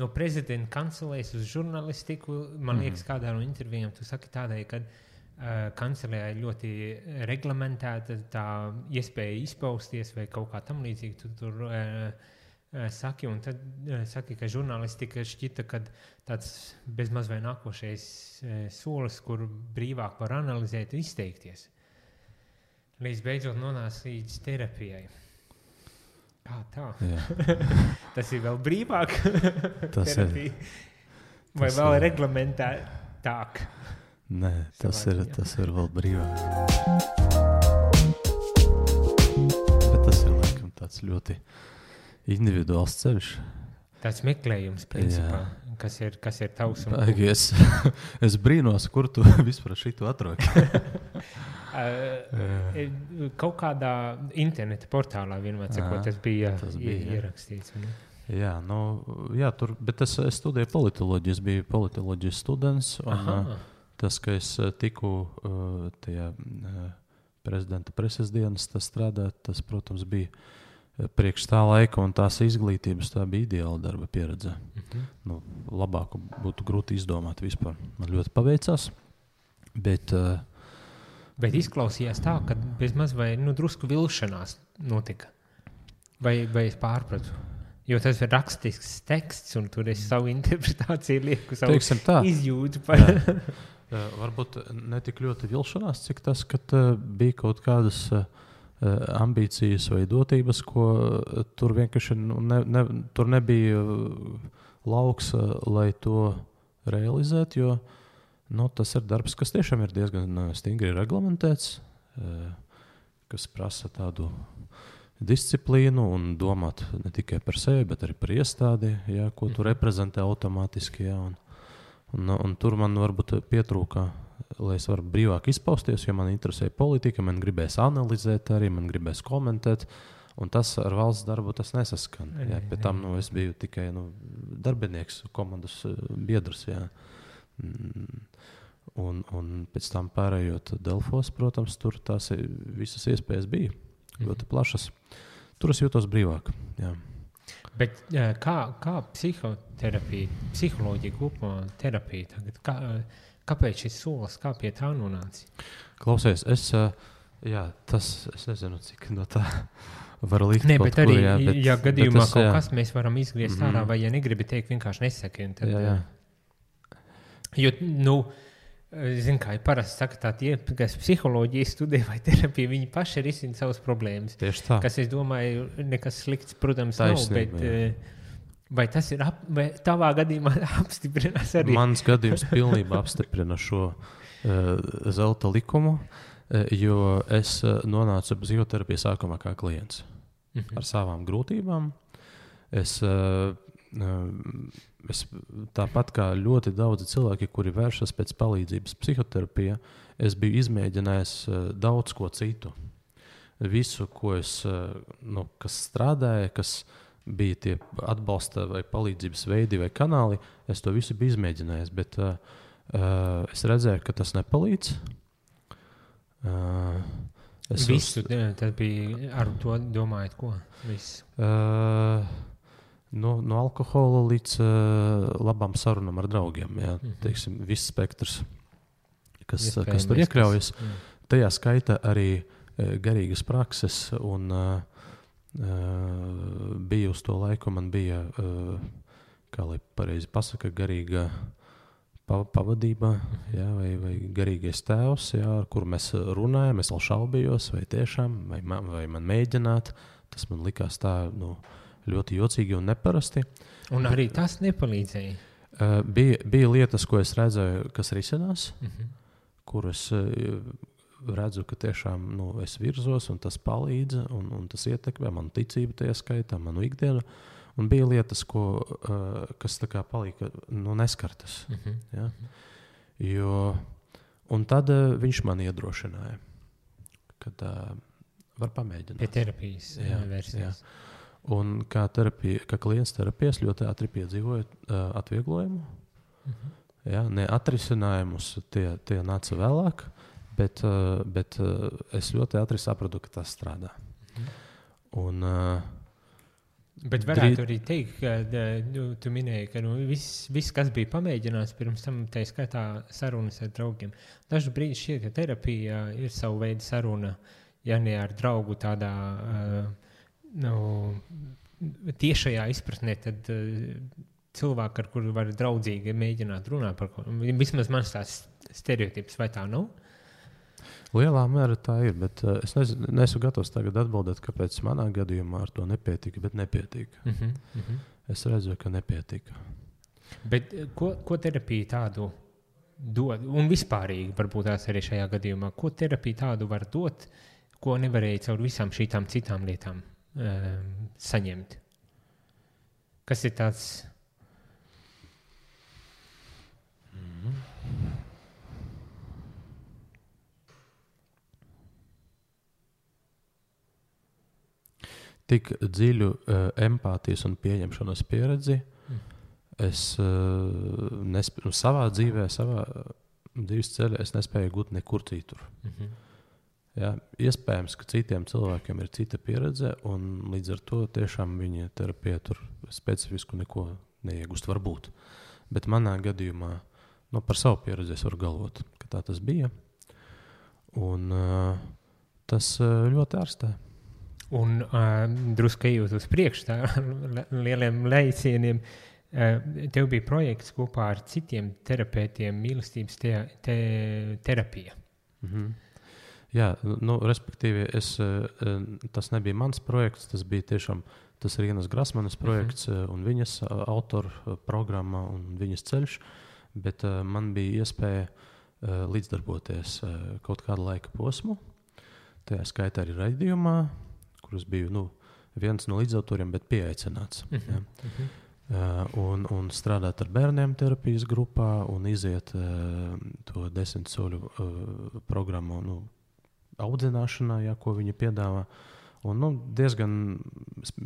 no prezidenta kancelēs uz žurnalistiku, man liekas, kādā no intervijām tu saki tādai, ka kancelējā ir ļoti reglamentēta tā iespēja izpausties vai kaut kā tam līdzīgi tu tur saki, un tad saki, ka žurnālistika šķita, ka tāds bezmaz vai nākošais solis, kur brīvāk var analizēt un izteikties. Līdz beidzot nonāca līdz terapijai. Kā tā? Tas ir vēl brīvāk terapija? Vai vēl reglamentētāk? Nē, tas ir vēl brīvāk. Bet tas ir laikam tāds ļoti individuāls ceļš. Tāds meklējums, principā, kas ir tavs un... Es brīnos, kur tu vispār šitu atrodi. Kaut kādā interneta portālā vienmēr sakot, tas bija ierakstīts. Jā, tur, bet es studēju politoloģiju, es biju politoloģijas students, un tas, ka es tiku tajā prezidenta preses dienas strādāt, tas, protams, bija priekš tā laika un tās izglītības, tā bija ideāla darba pieredze. Labāku būtu grūti izdomāt vispār. Man ļoti paveicās, bet izklausījās tā, ka bezmaz vai drusku vilšanās notika. Vai es pārpratu? Jo tas ir rakstisks teksts, un tur es savu interpretāciju lieku, savu izjūtu par... Varbūt ne tik ļoti vilšanās, cik tas, ka bija kaut kādas ambīcijas vai dotības, ko tur vienkārši tur nebija lauks, lai to realizētu, jo tas ir darbs, kas tiešām ir diezgan stingri reglamentēts, kas prasa tādu disciplīnu un domāt ne tikai par sevi, bet arī par iestādi, ko tu reprezentē automātiski. Un tur man varbūt pietrūka, lai es varu brīvāk izpausties, jo man interesēja politika, man gribēs analizēt arī, man gribēs komentēt, un tas ar valsts darbu tas nesaskan. Pēc tam es biju tikai darbinieks, komandas biedrs. Un pēc tam pārējot Delfos, protams, tur tās visas iespējas bija ļoti plašas. Tur es jūtos brīvāk. Bet kā psihoterapija, psiholoģija kopumā terapija tagad? Kāpēc šis solis, kā pie tā nonāci? Klausies, es nezinu, cik no tā var likt kaut kur. Bet arī, ja gadījumā kaut kas mēs varam izgriezt ārā, vai ja negribi teikt, vienkārši nesaki. Jo, zinu, kā ir parasti saka tā tie, kas psiholoģiju studē vai terapiju, viņi paši risina savas problēmas. Tieši tā. Kas, es domāju, nekas slikts, protams, taisnība, nav, bet vai tas ir, vai tavā gadījumā apstiprinās arī? Mans gadījums pilnībā apstiprina šo zelta likumu, jo es nonācu psihoterapiju sākumā kā klients ar savām grūtībām. Es tāpat kā ļoti daudzi cilvēki, kuri vēršas pēc palīdzības psihoterapijā, es biju izmēģinājis daudz ko citu. Visu, ko es, kas strādāja, kas bija tie atbalsta vai palīdzības veidi vai kanāli, es to visu biju izmēģinājis, bet es redzēju, ka tas nepalīdz. Visu, tad bija ar to domājot, ko? Visu. No alkohola līdz labām sarunām ar draugiem. Teiksim, viss spektrs, kas tur iekļaujas. Tajā skaita arī garīgas prakses, un bija uz to laiku, man bija, kā lai pareizi pasaka, garīga pavadība, vai garīgais tēvs, ar kuru mēs runājam, es vēl šaubījos, vai tiešām, vai man mēģināt. Tas man likās tā, ļoti jocīgi un neparasti. Un arī tas nepalīdzēja? Bija lietas, ko es redzēju, kas risinās, kur es redzu, ka tiešām es virzos, un tas palīdz, un tas ietekmē manu ticību tajā skaitā, manu ikdienu. Un bija lietas, kas tā kā palika neskartas. Un tad viņš man iedrošināja, kad var pamēģināt. Pie terapijas versijas. Un kā klients terapijas ļoti ātri piedzīvoja atvieglojumu. Ne atrisinājumus, tie nāca vēlāk, bet es ļoti ātri sapratu, ka tas strādā. Un Bet varētu arī teikt, ka tu minēji, ka viss, kas bija pamēģināts pirms tam, tā skaitā sarunas ar draugiem. Dažu brīdi šķiet, ka terapija ir savu veidu saruna, ja ne ar draugu tādā tiešajā izpratnē, tad cilvēku, ar kuru var draudzīgi mēģināt runāt par ko. Vismaz mans tās stereotips, vai tā nav? Lielā mērā tā ir, bet es neesmu gatavs tagad atbildēt, kāpēc manā gadījumā ar to nepietika, bet nepietika. Es redzu, ka nepietika. Bet ko terapija tādu dod? Un vispārīgi varbūt tās arī šajā gadījumā. Ko terapija tādu var dot, ko nevarēja caur visām šītām citām lietām saņemt? Kas ir tāds... Tik dziļu empātijas un pieņemšanas pieredzi es savā dzīvē, savā dzīves ceļā es nespēju gūt nekur citur. Jā, iespējams, ka citiem cilvēkiem ir cita pieredze, un līdz ar to tiešām viņa terapija tur specifisku neko neiegūst varbūt. Bet manā gadījumā, par savu pieredzi es varu galvot, ka tā tas bija. Un tas ļoti ārstē. Un drusku ejot uz priekšu tā lieliem lejcieniem, tev bija projekts kopā ar citiem terapeitiem mīlestības terapija. Jā, respektīvi, tas nebija mans projekts, tas ir Rienas Grasmanas projekts un viņas autoru programma un viņas ceļš, bet man bija iespēja līdzdarboties kaut kādu laika posmu, tajā skaitā arī raidījumā, kurus biju viens no līdzautoriem, bet pieaicināts. Un strādāt ar bērniem terapijas grupā un iziet to 10 soļu programmu audzināšanā, ko viņi piedāvā. Un diezgan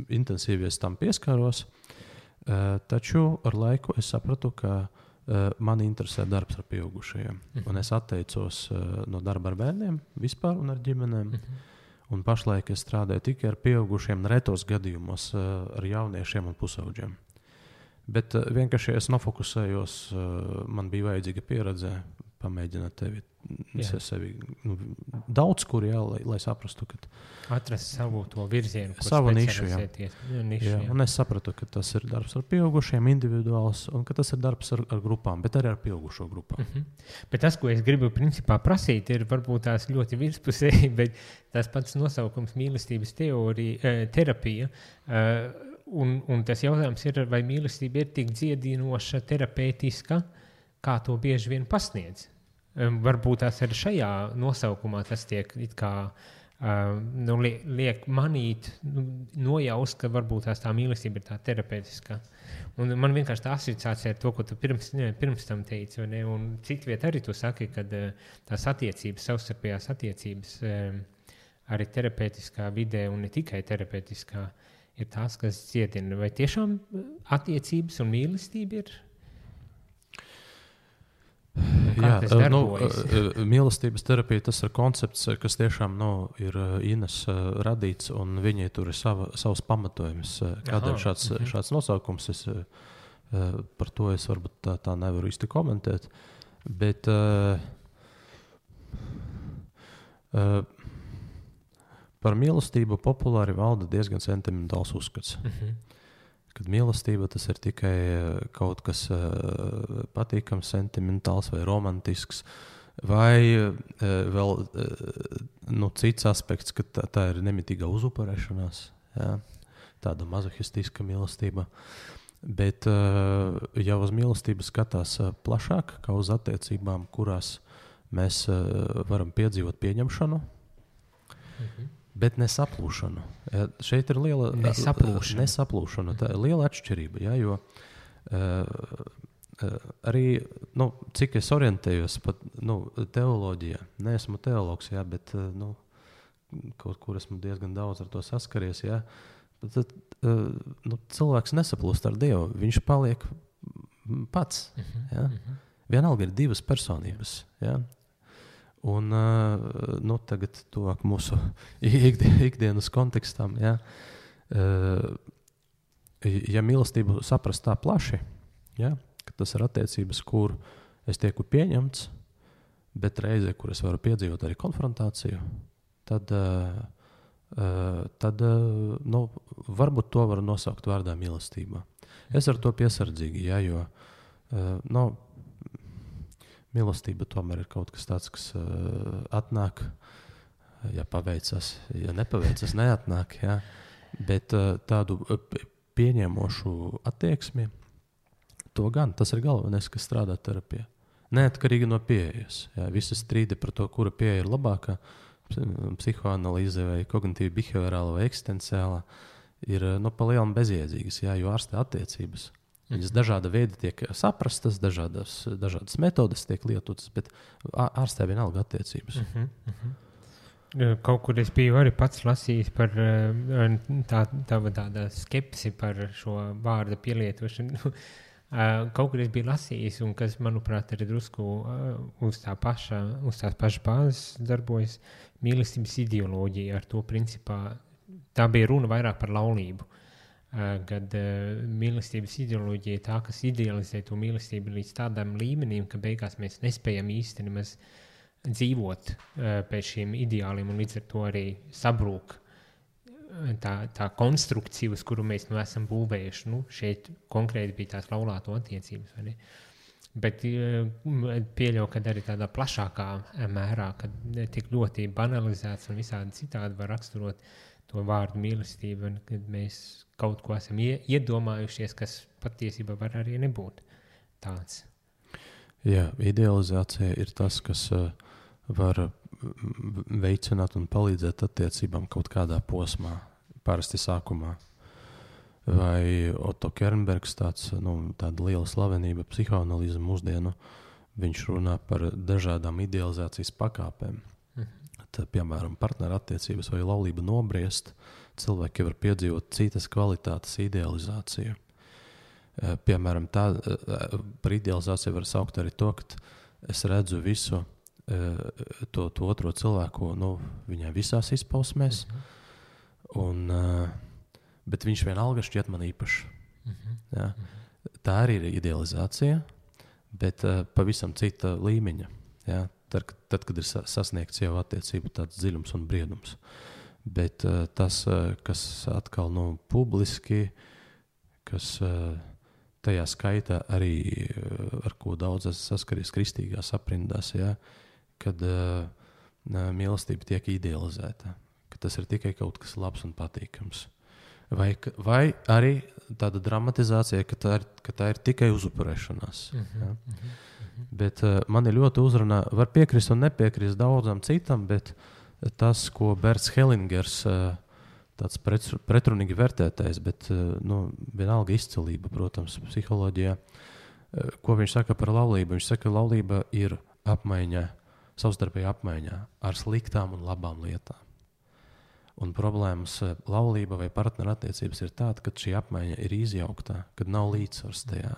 intensīvi es tam pieskāros, taču ar laiku es sapratu, ka mani interesē darbs ar pieaugušajiem. Un es atteicos no darba ar bērniem vispār un ar ģimenēm. Un pašlaik es strādāju tikai ar pieaugušiem, retos gadījumos ar jauniešiem un pusaudžiem. Bet vienkārši es nofokusējos, man bija vajadzīga pieredze pamēģināt sevi daudz kur, lai saprastu, ka atrast savu to virzienu, savu nišu, un es sapratu, ka tas ir darbs ar pieaugušiem, individuāls, un ka tas ir darbs ar grupām, bet arī ar pieaugušo grupām. Bet tas, ko es gribu principā prasīt, ir varbūt tās ļoti virspusēji, bet tas pats nosaukums mīlestības terapija, un tas jautājums ir, vai mīlestība ir tik dziedinoša, terapeitiska, kā to bieži vien pasniedz. Varbūt tās arī šajā nosaukumā tas tiek it kā liek manīt, nojaust, ka varbūt tā mīlestība ir tā terapeitiskā. Un man vienkārši tā asociācija ar to, ko tu pirms tam teici, un citviet arī tu saki, ka tās attiecības, savstarpējās attiecības arī terapeitiskā vidē un ne tikai terapeitiskā ir tās, kas ciedina. Vai tiešām attiecības un mīlestība ir? Jā, mīlestības terapija tas ir koncepts, kas tiešām ir Ines radīts, un viņai tur ir savs pamatojums. Kādēļ šāds nosaukums, par to es varbūt tā nevaru īsti komentēt, bet par mīlestību populāri valda diezgan sentimentāls uzskats. Kad mīlestība tas ir tikai kaut kas patīkams, sentimentāls vai romantisks, vai vēl cits aspekts, ka tā ir nemitīga uzupurēšanās, tāda mazohistiska mīlestība. Bet ja uz mīlestību skatās plašāk, kā uz attiecībām, kurās mēs varam piedzīvot pieņemšanu, bet nesaplūšanu. Šeit ir liela nesaplūšana. Tā ir liela atšķirība, jo arī, cik es orientējos pat teoloģijā, neesmu teologs, bet kaut kur esmu diezgan daudz ar to saskaries, tad cilvēks nesaplūst ar Dievu, viņš paliek pats. Vienalga ir divas personības, Un tagad tuvāk mūsu ikdienas kontekstam, ja mīlestību saprast tā plaši, ja, ka tas ir attiecības, kur es tieku pieņemts, bet reizē, kur es varu piedzīvot arī konfrontāciju, tad varbūt to var nosaukt vārdā mīlestība. Es ar to piesardzīgi, ja, jo mīlestība tomēr ir kaut kas tāds, kas atnāk, ja paveicas, ja nepaveicas, neatnāk, ja. Bet tādu pieņemošu attieksmi, to gan, tas ir galvenais, kas strādā terapijā. Neatkarīgi no pieejas. Ja, visi strīdi par to, kura pieeja ir labākā, psihoanalīze vai kognitīva behaviorāla vai eksistenciāla, ir pa lielam bezjēdzīgas, ja, jo ārstē attiecības. Viņas dažāda veida tiek saprastas, dažādas metodes tiek lietotas, bet ārstē vienalga attiecības. Kaut kur es biju arī pats lasījis par tāda skepsi par šo vārda pielietošanu. Kaut kur es biju lasījis, un kas, manuprāt, arī drusku uz tās pašas bāzes darbojas mīlestības ideoloģija. Ar to principā tā bija runa vairāk par laulību. Kad mīlestības ideoloģija ir tā, kas idealizē to mīlestību līdz tādam līmenim, ka beigās mēs nespējam īsti nemaz dzīvot pēc šiem ideāliem, un līdz ar to arī sabrūk tā konstrukcija, uz kuru mēs esam būvējuši. Šeit konkrēti bija tās laulāto attiecības, vai ne? Bet pieļauju, ka arī tādā plašākā mērā, kad tik ļoti banalizēts un visādi citādi var raksturot to vārdu mīlestību, kad mēs kaut ko esam iedomājušies, kas patiesībā var arī nebūt tāds. Jā, idealizācija ir tas, kas var veicināt un palīdzēt attiecībām kaut kādā posmā, parasti sākumā. Vai Otto Kernbergs, tāda liela slavenība psihoanalīze mūsdienu, viņš runā par dažādām idealizācijas pakāpēm. Tad, piemēram, partnerattiecības vai laulība nobriest, cilvēki var piedzīvot citas kvalitātes idealizāciju. Piemēram, par idealizāciju var saukt arī to, ka es redzu visu to otro cilvēku, viņai visās izpausmēs, bet viņš vienalga šķiet man īpašs. Ja? Tā arī ir idealizācija, bet pavisam cita līmeņa. Ja? Tad, kad ir sasniegts jau attiecību tāds dziļums un briedums. Bet tas, kas atkal publiski, kas tajā skaitā arī, ar ko daudz saskaries kristīgās aprindās, ja? Kad mīlestība tiek idealizēta, ka tas ir tikai kaut kas labs un patīkams. Vai arī tāda dramatizācija, ka tā ir tikai uzupurēšanās. Ja? Bet mani ļoti uzrunā, var piekrist un nepiekrist daudzam citam, bet tas, ko Berts Hellingers, tāds pretrunīgi vērtētais, bet vienalga izcilība, protams, psiholoģijā, ko viņš saka par laulību. Viņš saka, ka laulība ir apmaiņa, savstarpēja apmaiņā ar sliktām un labām lietām. Un problēmas laulība vai partnerattiecības ir tāda, ka šī apmaiņa ir izjauktā, kad nav līdzsvars tajā.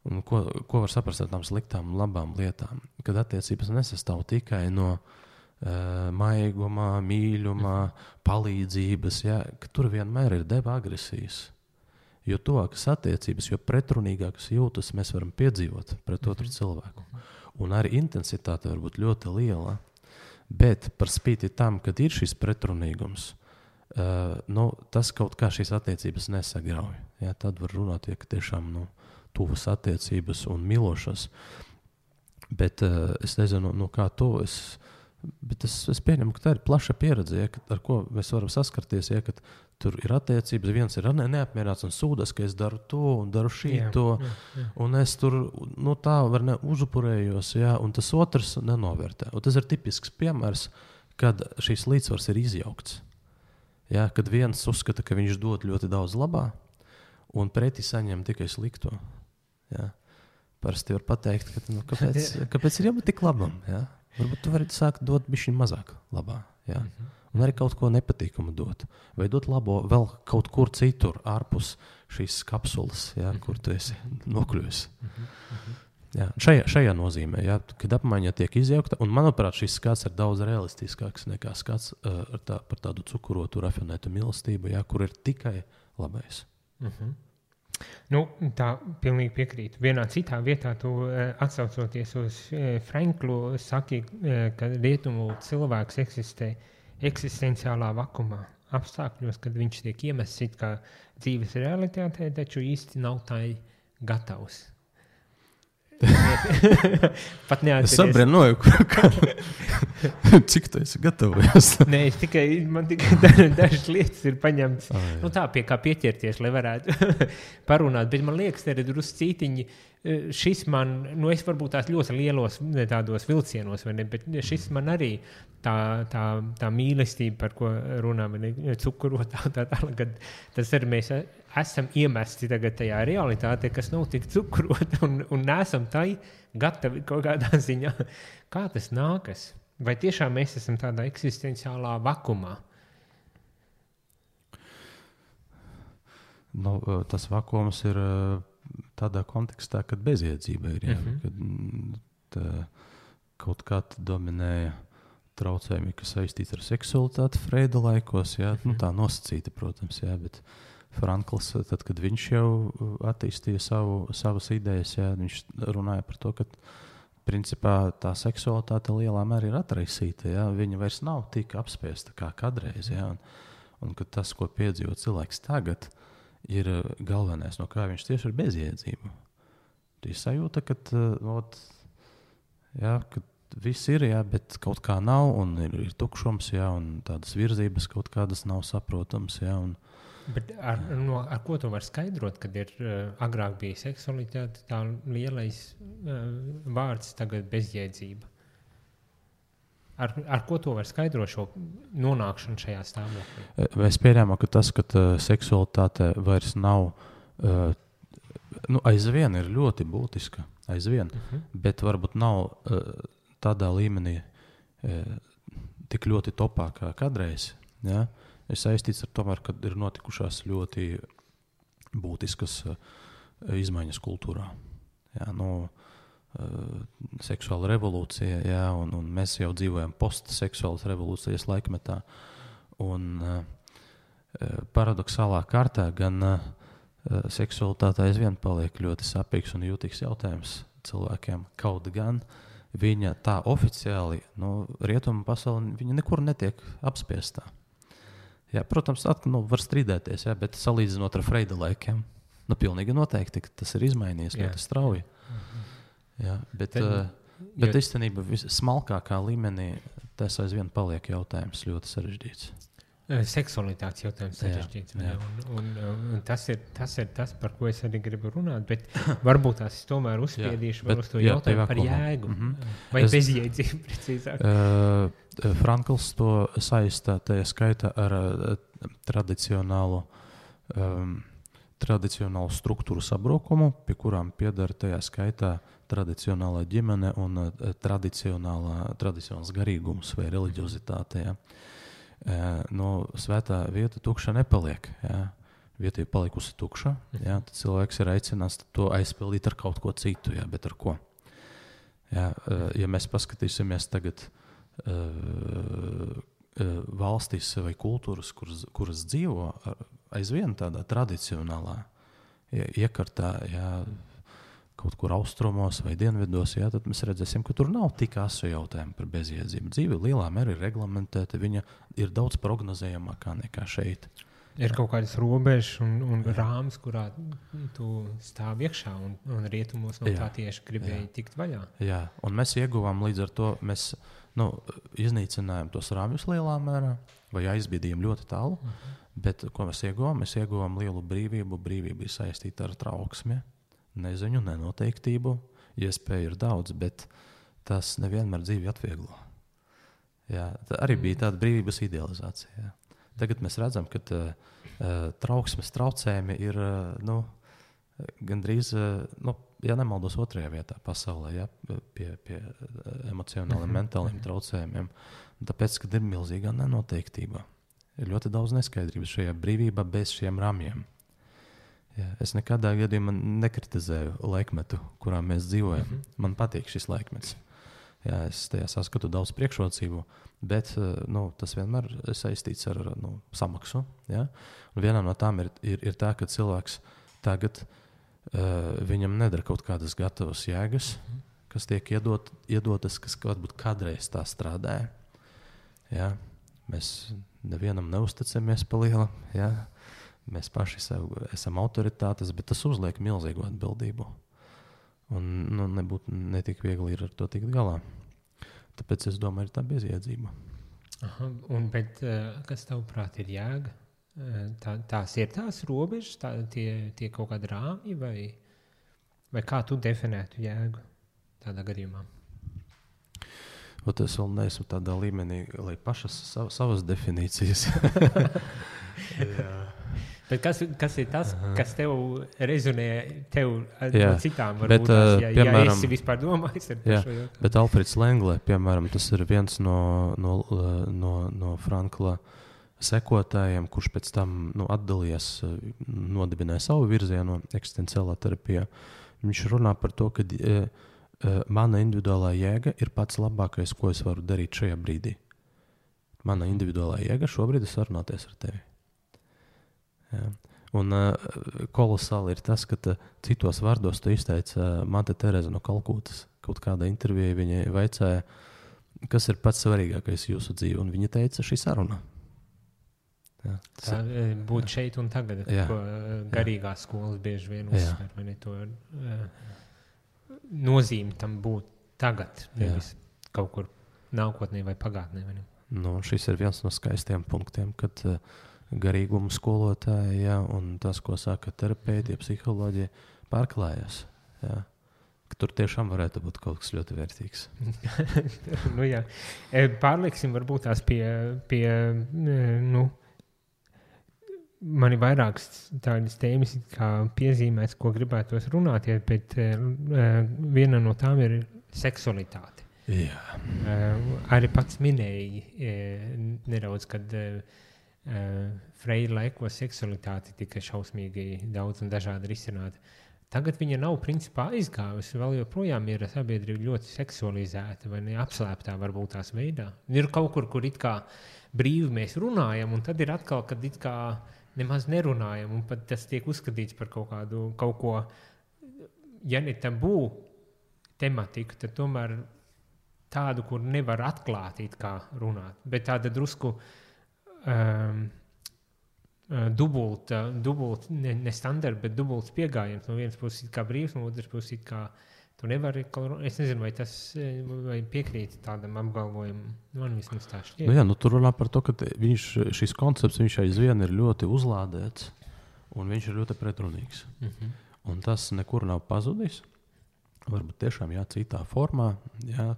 Un ko var saprast ar tām sliktām un labām lietām? Kad attiecības nesastāv tikai no maigumā, mīļumā, palīdzības, ja, ka tur vienmēr ir deva agresijas. Jo tuvākas attiecības, jo pretrunīgākas jūtas mēs varam piedzīvot pret otru cilvēku. Un arī intensitāte var būt ļoti liela, bet par spīti tam, kad ir šis pretrunīgums, tas kaut kā šīs attiecības nesagrauj. Ja, tad var runāt, ja tiešām tuvas attiecības un milošas. Bet es nezinu, kā to bet es pieņemu, ka tā ir plaša pieredze, ja, ar ko mēs varam saskarties, ja, kad tur ir attiecības, viens ir neapmierināts un sūdas, ka es daru to un daru šito, un es tur tā var uzupurējos, ja, un tas otrs nenovērtē. Un tas ir tipisks piemērs, kad šīs līdzsvars ir izjaukts. Ja, kad viens uzskata, ka viņš dod ļoti daudz labā, un pretī saņem tikai slikto. Ja. Parasti var pateikt, ka kāpēc ir jābūt tik labam, ja? Varbūt tu vari sākt dot bišķiņ mazāk labā. Ja? Un arī kaut ko nepatīkamu dot. Vai dot labo vēl kaut kur citur, ārpus šīs kapsulas, ja, kur tu esi nokļuvis. Ja, šajā nozīmē, ja, kad apmaiņa tiek izjaukta, un manuprāt, šis skats ir daudz realistiskāks nekā skats par tādu cukurotu, rafinētu mīlestību, ja, kur ir tikai labais. Nu, tā pilnīgi piekrītu. Vienā citā vietā tu atsaucoties uz Franklu saki, ka rietumu cilvēks eksistē eksistenciālā vakumā apstākļos, kad viņš tiek iemests it kā dzīves realitātē, taču īsti nav tai gatavs. Pat Es sabrinoju, cik tu esi gatavojies. Nē, man tikai dažas lietas ir paņemtas. Nu tā, pie kā pieķerties, lai varētu parunāt. Bet man liekas, te ir drusku cītiņi. Šis man, es varbūt tās ļoti lielos tādos vilcienos, vai ne, bet šis man arī tā mīlestība, par ko runā, cukurotā, kad tas arī mēs esam iemesti tagad tajā realitātē, kas nav tik cukurota un nesam tai gatavi kaut kādā ziņā. Kā tas nākas? Vai tiešām mēs esam tādā eksistenciālā vakumā? Nu, tas vakums ir tādā kontekstā, kad bezjēdzība ir. Kad kaut kā dominēja traucējumi, kas saistīti ar seksualitāti Freida laikos. Nu, tā nosacīta, protams, bet Frankls, tad, kad viņš jau attīstīja savas idejas, viņš runāja par to, ka principā tā seksualitāte lielā mērā ir atraisīta. Viņa vairs nav tik apspiesta kā kādreiz. Un ka tas, ko piedzīvo cilvēks tagad, ir galvenais, no kā viņš tieši ir bezjēdzība. Tu sajūta, ka viss ir, bet kaut kā nav, un ir tukšums, un tādas virzības kaut kādas nav saprotams. Bet ar ko tu vari skaidrot, kad ir agrāk bija seksualitāte, tā lielais vārds, tagad bezjēdzība? Ar ko to var skaidrot šo nonākšanu šajā stāvoklī? Es pieņēmu, ka tas, ka seksualitāte vairs nav, aizvien ir ļoti būtiska, bet varbūt nav tādā līmenī tik ļoti topā kā kādreiz. Ir saistīts ar tomēr, kad ir notikušās ļoti būtiskas izmaiņas kultūrā. Seksuāla revolūcija, un mēs jau dzīvojam postseksuālas revolūcijas laikmetā. Un paradoxālā kārtā gan seksualitāte aizvien paliek ļoti sapīgs un jūtīgs jautājums cilvēkiem. Kaut gan viņa tā oficiāli, rietumu pasauli, viņa nekur netiek apspiestā. Protams, var strīdēties, bet salīdzinot ar Freida laikiem, pilnīgi noteikti, ka tas ir izmainījies ļoti strauji. Bet īstenībā smalkākā līmenī tas aizvien paliek jautājums ļoti sarežģīts. Seksualitātes jautājums sarežģīts. Un tas ir tas, par ko es arī gribu runāt, bet varbūt tās es tomēr uzspiedīšu vēl uz to jautājumu par jēgu. Vai bezjēdzību precīzāk? Frankls to saistā tajā skaitā ar tradicionālu struktūru sabrukumu, pie kurām piedara tajā skaitā tradicionālā ģimene un tradicionāls garīgums vai reliģiozitāte. Svētā vieta tukša nepaliek. Vieta ir palikusi tukša. Tad cilvēks ir aicināts to aizpildīt ar kaut ko citu, bet ar ko? Ja mēs paskatīsimies tagad valstīs vai kultūras, kuras dzīvo aizvien tādā tradicionālā iekartā, kaut kur austrumos vai dienvidos, tad mēs redzēsim, ka tur nav tik asu jautājumu par bezjēdzību. Dzīve lielā mērā ir reglamentēta, viņa ir daudz prognozējamākā nekā šeit. Ir kaut kādas robežas un rāmas, kurā tu stāv iekšā un rietumos no tā tieši gribēji tikt vaļā. Un mēs ieguvām līdz ar to, mēs iznīcinājām tos rāmjus lielā mērā vai aizbīdījām ļoti tālu, bet ko mēs ieguvām? Mēs ieguvām lielu brīvību. Brīvība ir saistīta ar trauksmi, neziņu, nenoteiktību. Iespēju ir daudz, bet tas nevienmēr dzīvi atvieglo. Tā arī bija tāda brīvības idealizācija. Tagad mēs redzam, ka trauksmes traucējumi ir gandrīz, ja nemaldos, otrajā vietā pasaulē, pie emocionāliem, mentāliem traucējumiem. Tāpēc, kad ir milzīgā nenoteiktība, ir ļoti daudz neskaidrības šajā brīvībā bez šiem ramjiem. Es nekādā gadījumā nekritizēju laikmetu, kurā mēs dzīvojam. Man patīk šis laikmets. Jā, es tajā saskatu daudz priekšrocību, bet tas vienmēr ir saistīts ar samaksu. Ja? Un viena no tām ir tā, ka cilvēks tagad viņam nedara kaut kādas gatavas jēgas, kas tiek iedotas, kas varbūt kādreiz tā strādāja. Ja? Mēs nevienam neusticamies pa lielu. Ja? Mēs paši esam autoritātes, bet tas uzliek milzīgu atbildību. Un nebūtu netik viegli ir ar to tikt galā. Tāpēc es domāju, ir tā bezjēdzība. Bet kas tavuprāt ir jēga? Tās ir tās robežas, tie kaut kādi rāmji, vai kā tu definētu jēgu tādā gadījumā? Es vēl neesmu tādā līmenī, lai pašas savas definīcijas. Bet kas ir tas, kas tev rezonē no citām? Varbūt piemēram, ja esi vispār domājis ar šo jautājumu. Bet Alfreds Lenglē, piemēram, tas ir viens no Frankla sekotājiem, kurš pēc tam atdalījās, nodibināja savu virzienu eksistenciālā terapijā. Viņš runā par to, ka mana individuālā jēga ir pats labākais, ko es varu darīt šajā brīdī. Mana individuālā jēga šobrīd ir sarunāties ar tevi. Jā. Un kolosāli ir tas, ka citos vārdos tu izteica Mate Tereza no Kalkutas. Kaut kādā intervijā viņai vaicāja, kas ir pats svarīgākais jūsu dzīvē, un viņa teica šī saruna. Jā. Tā būt šeit un tagad, ko garīgās skolas bieži vien uzsver, vai ne to nozīmi tam būt tagad, nevis kaut kur nākotnē vai pagātnē. Vai ne? Šis ir viens no skaistiem punktiem, kad garīguma skolotāji, un tas, ko saka terapeiti, psiholoģija, pārklājas. Jā. Tur tiešām varētu būt kaut kas ļoti vērtīgs. Pārlieksim varbūt tās pie man ir vairākas tādas tēmas, kā piezīmēs, ko gribētos runāt, bet viena no tām ir seksualitāte. Jā. Arī pats minēji nedaudz, kad Freira laikos seksualitāte tika šausmīgi daudz un dažādi risināta. Tagad viņa nav principā aizgājusi, vēl joprojām ir sabiedrība ļoti seksualizēta vai ne, apslēptā varbūt tās veidā. Ir kaut kur it kā brīvi mēs runājam, un tad ir atkal, kad it kā nemaz nerunājam, un pat tas tiek uzskatīts par kaut ko, ja ne tabū tematiku, tad tomēr tādu, kur nevar atklāt it kā runāt, bet tāda drusku dubult, ne standarta, bet dubults pieejams. No vienas puses kā brīvs, no otras puses kā tu nevari. Es nezinu, vai tas piekrīt tādam apgalvojumam. Man vismaz tā šķiet. Tur runā par to, ka šis koncepts aizvien ir ļoti uzlādēts un viņš ir ļoti pretrunīgs. Un tas nekur nav pazudis. Varbūt tiešām citā formā.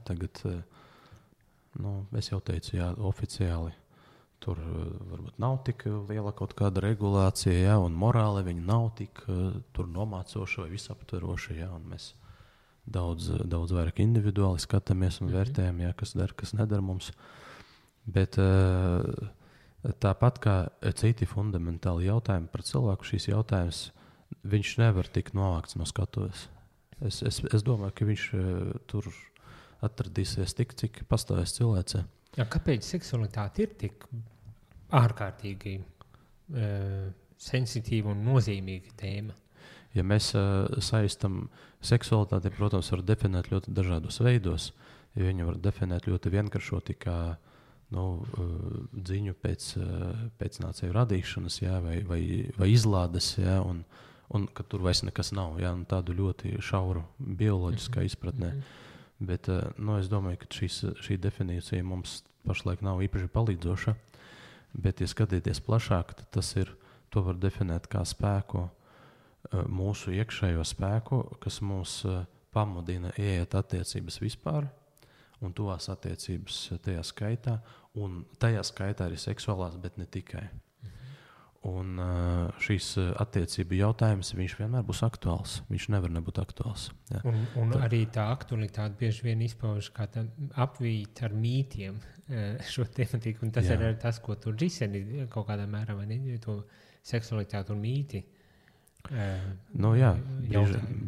Tagad, es jau teicu, oficiāli. Tur varbūt nav tik liela kaut kāda regulācija, un morāli viņa nav tik nomācoša vai visaptveroša. Un mēs daudz vairāk individuāli skatāmies un vērtējam, kas der, kas nedara mums. Bet tāpat kā citi fundamentāli jautājumi par cilvēku, šīs jautājums, viņš nevar tikt novākts no skatuves. Es domāju, ka viņš tur atradīsies tik, cik pastāvēs cilvēcē. Kāpēc seksualitāte ir tik ārkārtīgi sensitīva un nozīmīga tēma? Ja mēs saistam seksualitāti, protams, var definēt ļoti dažādos veidos. Ja viņu var definēt ļoti vienkāršoti kā dziņu pēc nācēju radīšanas, vai izlādes, un ka tur vairs nekas nav, tādu ļoti šauru bioloģiskā izpratnē. Bet es domāju, ka šī definīcija mums pašlaik nav īpaši palīdzoša. Bet, ja skatīties plašāk, tad to var definēt kā spēku, mūsu iekšējo spēku, kas mūs pamudina ieiet attiecības vispār, un tuvās attiecības tajā skaitā, un tajā skaitā arī seksuālās, bet ne tikai. Un šīs attiecību jautājums, viņš vienmēr būs aktuāls. Viņš nevar nebūt aktuāls. Ja. Un arī tā aktualitāte bieži vien izpauž kā apvīt ar mītiem šo tematiku. Un tas ir arī tas, ko tur risini kaut kādā mērā, vai ne? To seksualitāti un mīti.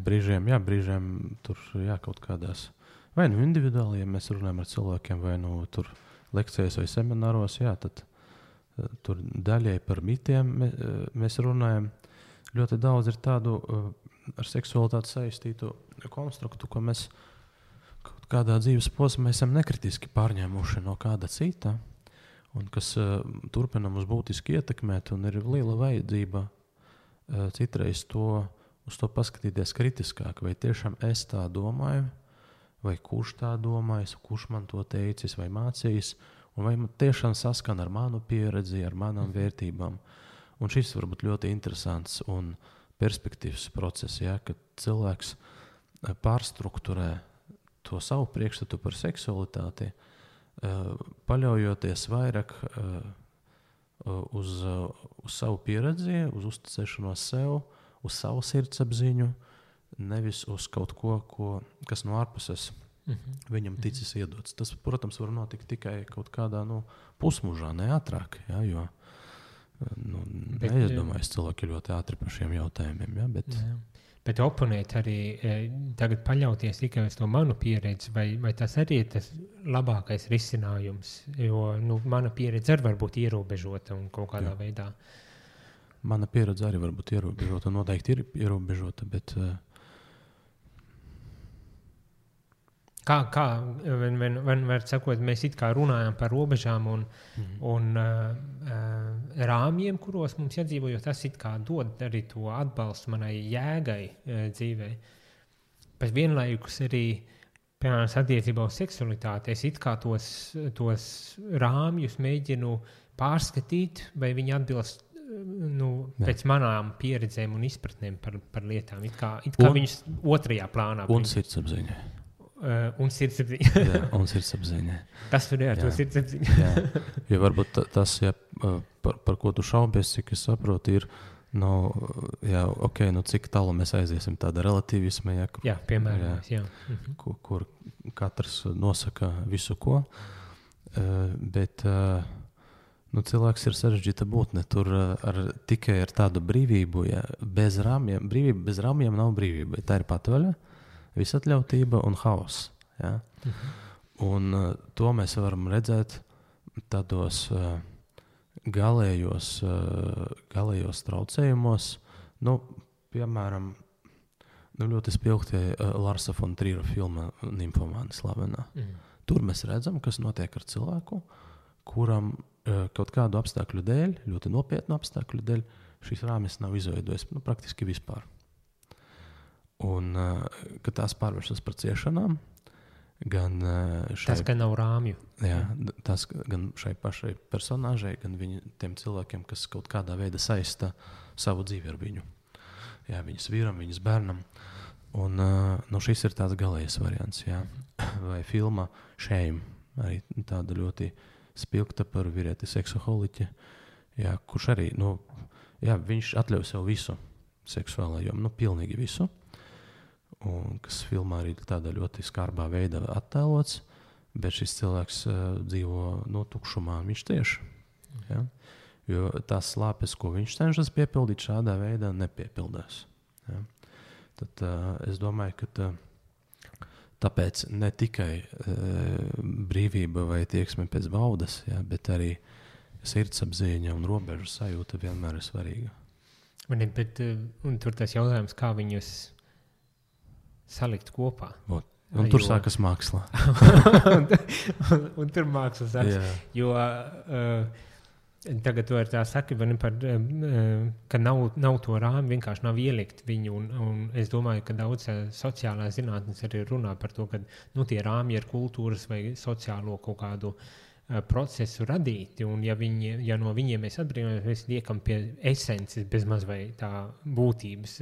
Brīžiem tur kaut kādās vai nu individuāli, ja mēs runājam ar cilvēkiem, vai nu tur lekcijas vai semināros, jā, tad tur daļai par mitiem mēs runājam. Ļoti daudz ir tādu ar seksualitāti saistītu konstruktu, ko mēs kaut kādā dzīves posmā esam nekritiski pārņēmuši no kāda cita, un kas turpina mums būtiski ietekmēt, un ir liela vajadzība citreiz uz to paskatīties kritiskāk, vai tiešām es tā domāju, vai kurš tā domājis, kurš man to teicis vai mācījis, un vai man tiešām saskan ar manu pieredzi, ar manām vērtībām. Un šis var būt ļoti interesants un perspektīvs process, ja, kad cilvēks pārstrukturē to savu priekšstatu par seksualitāti, paļaujoties vairāk uz savu pieredzi, uz uzticēšanos sev, uz savu sirdsapziņu, nevis uz kaut ko, kas no ārpuses viņam ticis iedots. Tas, protams, var notikt tikai kaut kādā pusmužā, ne ātrāk, ja, jo neizdomājas cilvēki ļoti ātri par šiem jautājumiem. Ja, bet oponēt arī tagad paļauties tikai uz to manu pieredzi, vai tas arī ir tas labākais risinājums, jo mana pieredze arī var būt ierobežota un kaut kādā veidā. Mana pieredze arī var būt ierobežota, noteikti ir ierobežota, bet Kā vienmēr sakot, mēs it kā runājam par robežām un rāmjiem, kuros mums jādzīvo, jo tas it kā dod arī to atbalstu manai jēgai dzīvē. Bet vienlaikus arī, piemēram, attiecībā uz seksualitāti, es it kā tos rāmjus mēģinu pārskatīt, vai viņi atbilst pēc manām pieredzēm un izpratnēm par lietām. It kā viņus otrajā plānā. Un sirdsapziņa. Un sirdsapziņa. Jā, un sirdsapziņa. Kas tur ir ar to sirdsapziņu? Jā, jo varbūt tas, ja, par ko tu šaubies, cik es saprotu, ir, cik tālu mēs aiziesim tāda relativisma, piemēram, kur katrs nosaka visu ko, bet cilvēks ir sarežģīta būtne, tur tikai ar tādu brīvību, bez rāmjiem, brīvība bez rāmjiem nav brīvība, tā ir patvaļa, visatļautība un haoss. Ja? Un to mēs varam redzēt tādos galējos traucējumos. Piemēram, ļoti spilgti Larsa von Trīra filma Nymphomāni slavenā. Tur mēs redzam, kas notiek ar cilvēku, kuram kaut kādu apstākļu dēļ, ļoti nopietnu apstākļu dēļ, šīs rāmis nav izveidojis praktiski vispār. Un kad tās pārvēršas par ciešanām, gan tas, ka nav rāmju. Jā, tas gan šai pašai personāžai, gan tiem cilvēkiem, kas kaut kādā veidā saista savu dzīvi ar viņu. Jā, viņas vīram, viņas bērnam. Un šis ir tāds galējais variants. Jā. Vai filma Shame, arī tāda ļoti spilgta par vīrieti seksoholiķi, kurš arī, viņš atļauj sev visu seksuālā jomu, pilnīgi visu. Un kas filmā arī tādā ļoti skarbā veidā attēlots, bet šis cilvēks dzīvo tukšumā, viņš tieši. Ja? Jo tās slāpes, ko viņš cenšas piepildīt, šādā veidā nepiepildās. Ja? Tad es domāju, ka tāpēc ne tikai brīvība vai tieksme pēc baudas, bet arī sirdsapziņa un robežu sajūta vienmēr ir svarīga. Un tur tas jautājums, kā viņus salikt kopā. Un tur sākas māksla. un tur māksla sākas. Jo tagad tu ar tā saki, ka nav to rāmi, vienkārši nav ielikt viņu. Un es domāju, ka daudz sociālās zinātnes arī runā par to, ka tie rāmi ir kultūras vai sociālo kaut kādu procesu radīti, un ja no viņiem mēs atbrīvojamies, mēs liekam pie esences bezmaz vai tā būtības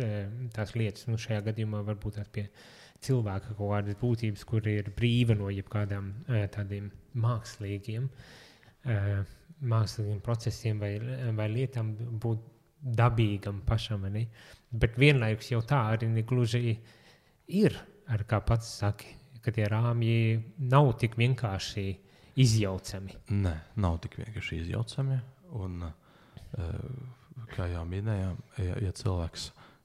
tās lietas, šajā gadījumā varbūt tās pie cilvēka kaut kādas būtības, kur ir brīva no jebkādām tādiem mākslīgiem procesiem vai lietām būt dabīgam pašam, ne? Bet vienlaikus jau tā arī negluži ir, ar kā pats saki, ka tie rāmji nav tik vienkārši izjaucami. Nē, nav tik vienkārši izjaucami. Un, kā jau minējām, ja cilvēks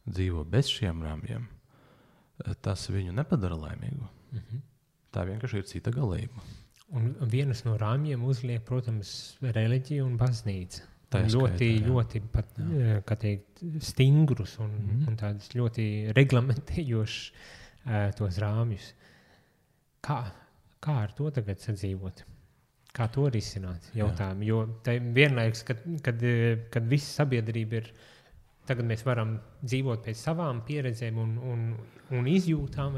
dzīvo bez šiem rāmjiem, tas viņu nepadara laimīgu. Tā vienkārši ir cita galība. Un vienas no rāmjiem uzliek, protams, reliģija un baznīca. Ļoti pat, kā teikt, stingrus un tādus ļoti reglamentējošus tos rāmjus. Kā ar to tagad sadzīvot? Kā to risināt jautājumu? Jo vienlaikus, kad visa sabiedrība ir, tagad mēs varam dzīvot pēc savām pieredzēm un izjūtām,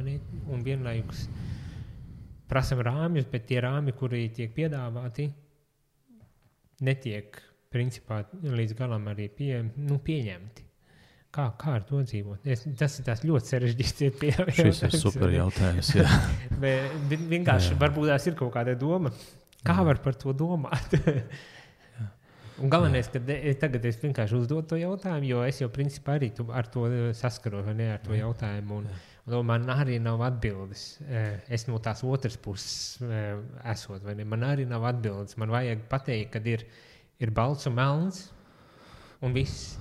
un vienlaikus prasam rāmjus, bet tie rāmji, kuri tiek piedāvāti, netiek principā līdz galam arī pieņemti. Kā ar to dzīvot? Tas ir tās ļoti sarežģīts. Šis ir super jautājums, jā. Bet vienkārši varbūt tās ir kaut kāda doma. Kā var par to domāt? Un galvenais, ka tagad es vienkārši uzdodu to jautājumu, jo es jau principā arī ar to saskaros, vai ne, ar to jautājumu. Un man arī nav atbildes. Es no tās otras puses esot, vai ne? Man arī nav atbildes. Man vajag pateikt, kad ir balts un melns un viss.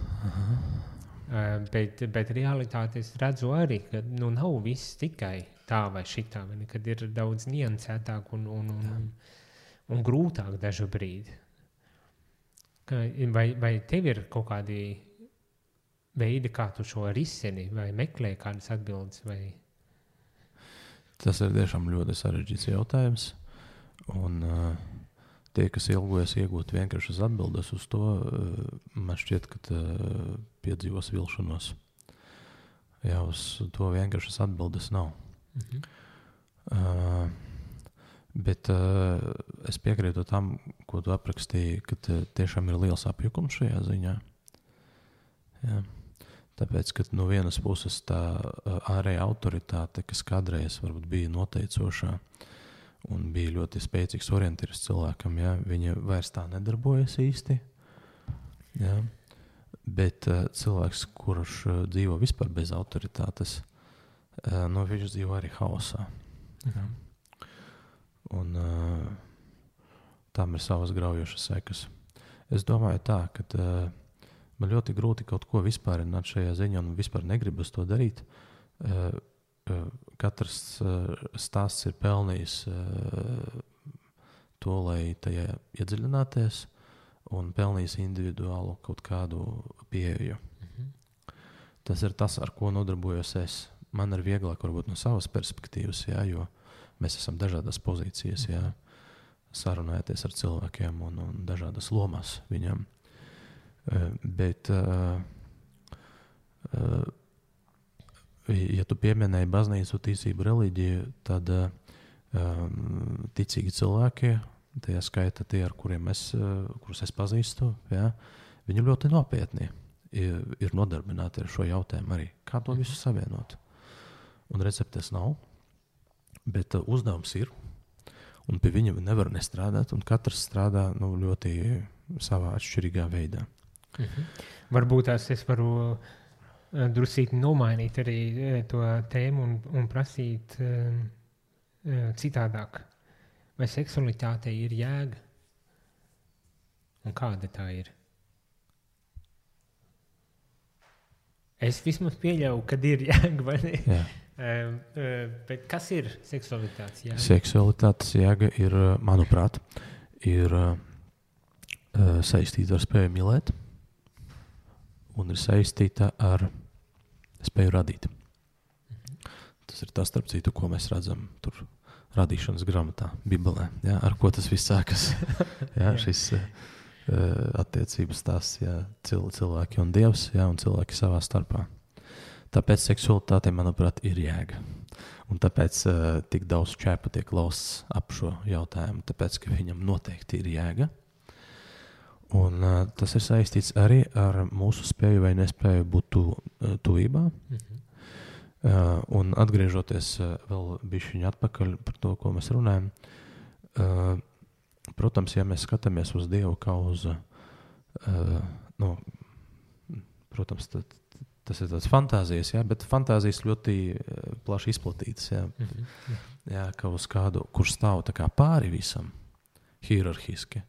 Bet realitāte es redzu arī, ka nav viss tikai tā vai šitā, vai ne? Kad ir daudz niansētāk un grūtāk dažu brīdi. Vai tev ir kaut kādi veidi, kā tu šo risini, vai meklē kādas atbildes? Vai? Tas ir tiešām ļoti sarežģīts jautājums. Un tie, kas ilgojas iegūt vienkāršas atbildes uz to, man šķiet, ka piedzīvos vilšanos. Jā, uz to vienkāršas atbildes nav. Bet es piekrītu tam, ko tu aprakstīji, ka tiešām ir liels apjukums šajā ziņā. Jā. Tāpēc, ka no vienas puses tā ārēja autoritāte, kas kādreiz varbūt bija noteicošā un bija ļoti spēcīgs orientieris cilvēkam, jā, viņa vairs tā nedarbojas īsti. Jā. Bet cilvēks, kurš dzīvo vispār bez autoritātes, viņš dzīvo arī haosā. Jā. Un tam ir savas graujošas sekas. Es domāju tā, ka man ļoti grūti kaut ko vispārināt šajā ziņā un vispār negribas to darīt. Katrs stāsts ir pelnījis to, lai tajā iedziļināties un pelnījis individuālu kaut kādu pieeju. Tas ir tas, ar ko nodarbojos es. Man ir vieglāk varbūt no savas perspektīvas, jā, jo mēs esam dažādas pozīcijas, jā, sarunājoties ar cilvēkiem un dažādas lomas viņam. Bet, ja tu pieminēji baznīcu, ticību, reliģiju, tad ticīgi cilvēki, tajā skaita tie, ar kurus es pazīstu, jā, viņi ļoti nopietni ir nodarbināti ar šo jautājumu arī. Kā to visu savienot? Un receptes nav. Bet uzdevums ir, un pie viņa nevar nestrādāt, un katrs strādā ļoti savā atšķirīgā veidā. Varbūt es varu drusīt nomainīt arī to tēmu un prasīt citādāk. Vai seksualitātei ir jēga? Un kāda tā ir? Es vismaz pieļauju, kad ir jēga, vai ne? Jā. Bet kas ir seksualitātes jēga? Seksualitātes jēga ir, manuprāt, saistīta ar spēju mīlēt un ir saistīta ar spēju radīt. Tas ir tas, starp citu, ko mēs redzam tur radīšanas grāmatā, Bībelē. Jā, ar ko tas viss sākas? Jā, šis attiecības tās, jā, cilvēki un Dievs, jā, un cilvēki savā starpā. Tāpēc seksualitāte, manuprāt, ir jēga. Un tāpēc tik daudz čēpa tiek lausts ap šo jautājumu, tāpēc, ka viņam noteikti ir jēga. Un tas ir saistīts arī ar mūsu spēju vai nespēju būt tuvībā. Un atgriežoties vēl bišķiņ atpakaļ par to, ko mēs runājam, protams, ja mēs skatāmies uz Dievu kā uz, protams, tas ir tāds fantāzijas, jā, bet fantāzijas ļoti plaši izplatītas, jā. Jā, kā uz kādu, kurš stāv tā kā pāri visam, hierarhiski,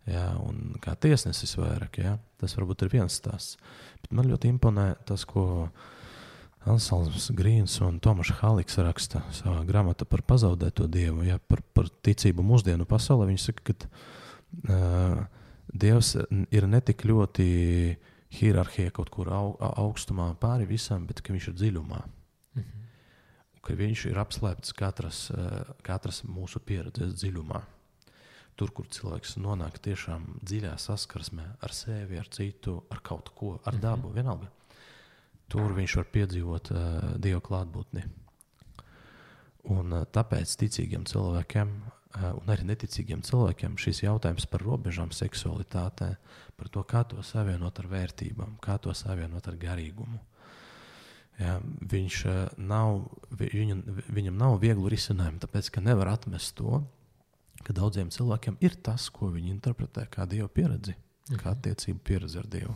jā, un kā tiesnesis vairāk, jā. Tas varbūt ir viens stāsts. Bet man ļoti imponē tas, ko Anselms Grīns un Tomašs Haliks raksta savā grāmatā par pazaudēto Dievu, ja, par ticību mūsdienu pasaulē. Viņi saka, ka Dievs ir ne tik ļoti hierarhija kaut kur augstumā pāri visam, bet ka viņš ir dziļumā. Ka viņš ir apslēpts katras mūsu pieredzes dziļumā. Tur, kur cilvēks nonāk tiešām dziļā saskarsmē ar sevi, ar citu, ar kaut ko, ar dabu, vienalga. Tur viņš var piedzīvot Dieva klātbūtni. Un tāpēc ticīgiem cilvēkiem un arī neticīgiem cilvēkiem šis jautājums par robežām seksualitātē, par to, kā to savienot ar vērtībām, kā to savienot ar garīgumu. Ja, viņam nav vieglu risinājumu, tāpēc, ka nevar atmest to, ka daudziem cilvēkiem ir tas, ko viņi interpretē kā Dieva pieredzi, kā attiecību pieredzi ar Dievu.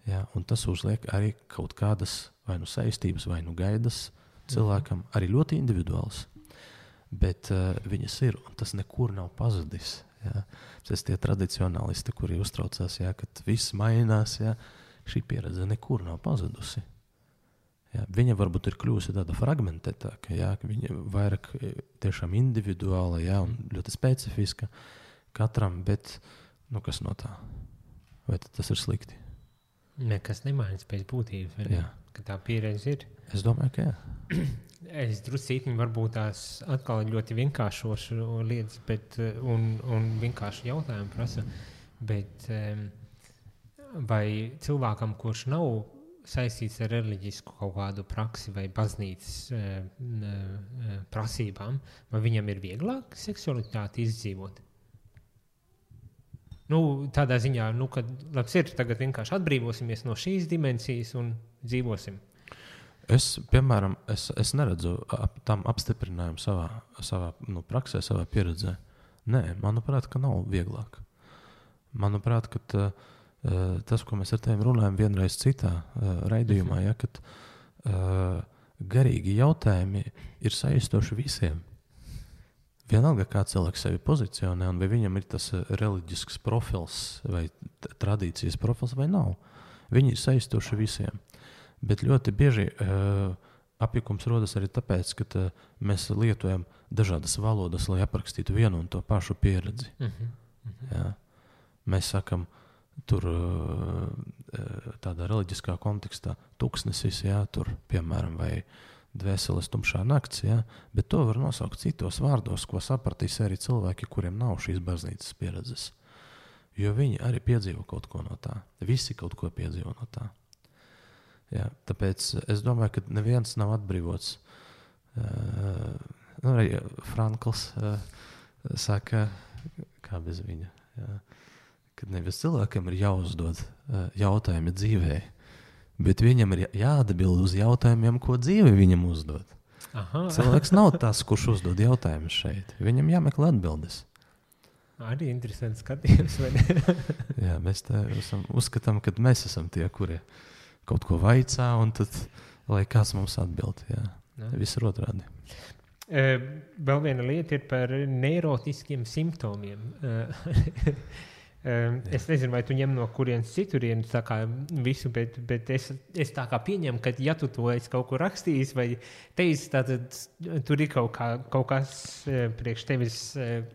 Ja, un tas uzliek arī kaut kādas vai nu saistības, vai nu gaidas cilvēkam, arī ļoti individuāls, bet viņas ir, un tas nekur nav pazudis. Ja. Tas tie tradicionālisti, kuri uztraucās, ja, kad viss mainās, ja, šī pieredze nekur nav pazudusi. Ja, viņa varbūt ir kļūsi tāda fragmentētāka, ja, viņa vairāk tiešām individuāla, ja, un ļoti specifiska katram, bet kas no tā? Vai tas ir slikti? Nekas nemainas pēc būtības, ka tā pieredze ir. Es domāju, ka jā. Es druscītiņi varbūt tās atkal ļoti vienkāršošu lietas, bet, un vienkārši jautājumu prasa, bet vai cilvēkam, kurš nav saistīts ar reliģisku kaut kādu praksi vai baznīcas prasībām, vai viņam ir vieglāk seksualitāti izdzīvot? Tādā ziņā, kad labs ir, tagad vienkārši atbrīvosimies no šīs dimensijas un dzīvosim. Es, piemēram, es neredzu tam apstiprinājumu savā praksē, savā pieredzē. Nē, manuprāt, ka nav vieglāk. Manuprāt, ka tas, ko mēs ar tevi runājam vienreiz citā raidījumā, ja, kad garīgi jautājumi ir saistoši visiem. Vienalga, kā cilvēks sevi pozicionē, un vai viņam ir tas reliģisks profils vai tradīcijas profils vai nav. Viņi ir saistoši visiem. Bet ļoti bieži apjukums rodas arī tāpēc, ka mēs lietojam dažādas valodas, lai aprakstītu vienu un to pašu pieredzi. Ja. Mēs sakam, tur tādā reliģiskā kontekstā tuksnesis, jā, tur, piemēram, vai dvēseles tumšā nakts, jā, bet to var nosaukt citos vārdos, ko sapratīs arī cilvēki, kuriem nav šīs baznīcas pieredzes. Jo viņi arī piedzīvo kaut ko no tā. Visi kaut ko piedzīvo no tā. Jā, tāpēc es domāju, ka neviens nav atbrīvots. Arī Frankls saka, kā bez viņa, jā, kad nevis cilvēkam ir jāuzdod jautājumi dzīvē, bet viņam ir jāatbild uz jautājumiem, ko dzīve viņam uzdod. Aha. Cilvēks nav tas, kurš uzdod jautājumus šeit. Viņam jāmeklē atbildes. Arī interesants skatījums. Jā, mēs uzskatām, ka mēs esam tie, kuri kaut ko vaicā, un tad, lai kāds mums atbild. Jā. Viss ir otrādi. Vēl viena lieta ir par neirotiskiem simptomiem. Es nezinu, vai tu ņem no kurienes citurienes tā kā visu, bet es tā kā pieņemu, ka ja tu to esi kaut ko rakstījis vai teicis, tad tur ir kaut kas priekš tevis,